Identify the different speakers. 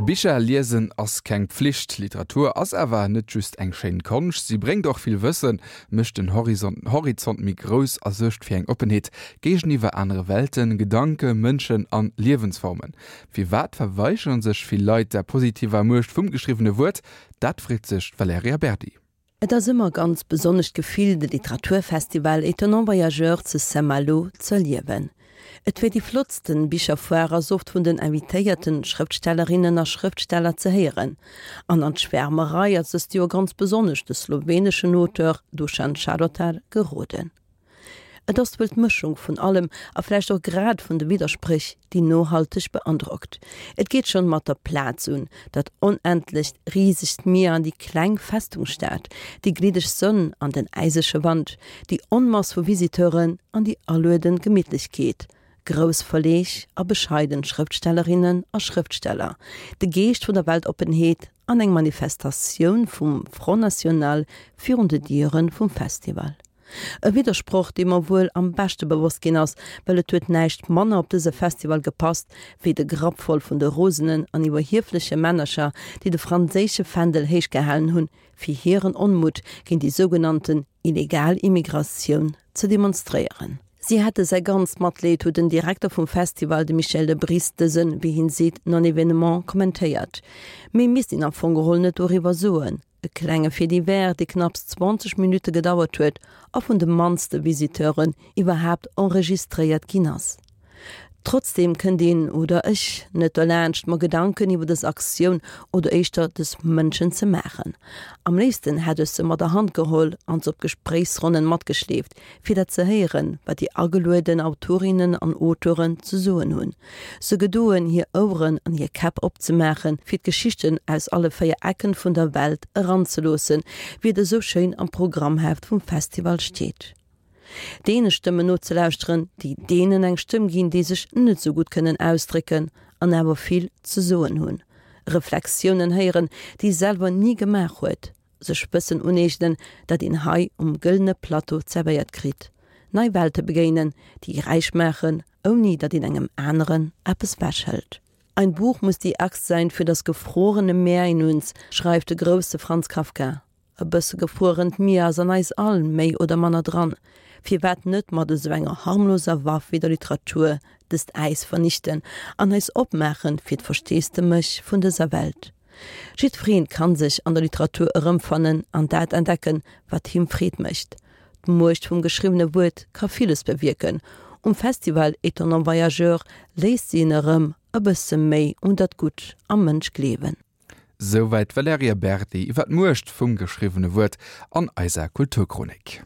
Speaker 1: Bicher liesen ass keng Pflicht. Literatur ass awer net just eng schéin Konscht, si bréngt och vill Wëssen, mécht den Horizont méi grouss a suergt fir eng Oppenheet géigeniwwer anere Welten, Gedanke, Mënschen an Liewensformen. Firwat verweigeren sech vill Leit der positiver Muecht vum geschriwwene Wuert? Dat freet sech d'Valerija Berdi.
Speaker 2: Et ass ëmmer e ganz besonnescht Gefill, de Literaturfestival Étonnants Voyageurs zu Saint-Malo z'erliewen. Et wier déi flottsten Bicherfoire ass oft vun den invitéierten Schrëftstellerinnen a Schrëftsteller ze héieren. An an d'Schwärmerei ass dëst Joer ganz besonnesch de sloweneschen Auteur Dušan Šarotar geroden. Et ass wuel d'Mëschung vun allem a vläicht och grad vun de Widderspréch, déi nohalteg beandrockt. Et geet schonn mat der Plaz un, dat onendlecht, risegt Mier an déi kleng Festungsstad, déi gliddeg Sonn an den äisege Wand, déi Onmass vu Visiteuren an déi aluedend Gemittlechkeet, grouss Verleeg a bescheiden Schrëftstellerinnen a Schrëftsteller, de Geescht vun der Weltoppenheet an eng Manifestatioun vum Front National virun de Diere vum Festival. E Widdersproch, dee mer wuel am beschte bewosst ginn ass, well et huet näischt manner op dëse Festival gepasst, wéi de Grapp voll vun de rosenen an iwwerhiefleche Männercher, déi de franséische Fändel héich gehalen hunn, fir hiren Onmutt géint déi sougenannten illegal Immigratioun ze demonstréieren. Si hätte säi ganzt Matleed, huet den Direkter vum Festival, de Michel Debris, dësen, wéi hien seet, Non-événement kommentéiert. Méi misst een am Fong geholl net doriwwer soen. E klenge Fait divers, dee knapps 20 Minutte gedauert huet a vun de mannste Visiteuren iwwerhaapt enregistréiert ginn ass. Trotzdeem kënnt een, oder ech, net derlaanscht, mer Gedanken iwwer dës Aktioun oder éischter dës Mënschen ze maachen. Am léifsten hätt ech se mat der Hand geholl an se op Gespréichsronnen matgeschleeft, fir dat ze héieren, wat déi agelueden Autorinnen an Auteuren ze soen hunn. Se gedoen, hir Oueren an hir Käpp opzemaachen, fir d'Geschichten aus alle 4 Ecken vun der Welt eranzeloossen, wéi et esou schéin am Programmheft vum Festival steet. Deene Stëmmen nozelauschteren, déi deenen eng Stëmm ginn, déi sech net esou gutt kënnen ausdrécken an awer vill ze soen hunn. Reflexiounen héieren, déi ee selwer ni gemaach huet. Sech Wëssen uneegnen, dat een hei um gëllene Plateau zerwéiert kritt. Nei Welte begéinen, déi räich maachen, ouni datt een engem aneren eppes wechhëlt. Ein Buch muss die Axt sein für das gefrorene Meer in uns, schreift de grousse Franz Kafka. E bësse gefruerent Mier ass an eis all méi oder manner dran. Firwat net mat esou enger harmloser Waff wéi der Literatur dëst Äis vernichten an eis opmaachen fir d'Versteesdemech vun dëser Welt? Jiddwereen kann sech an der Literatur erëmfannen an dat entdecken, wat him Freed mécht. D'Muecht vum geschriwwene Wuert ka villes bewierken. Um Festival Étonnants Voyageurs léisst si en erëm e bësse méi un dat Gutt am Mënsch gleewen.
Speaker 1: Souwäit d'Valerija Berdi iwwer d'Muecht vum geschriwwene Wuert an eiser Kulturchronik.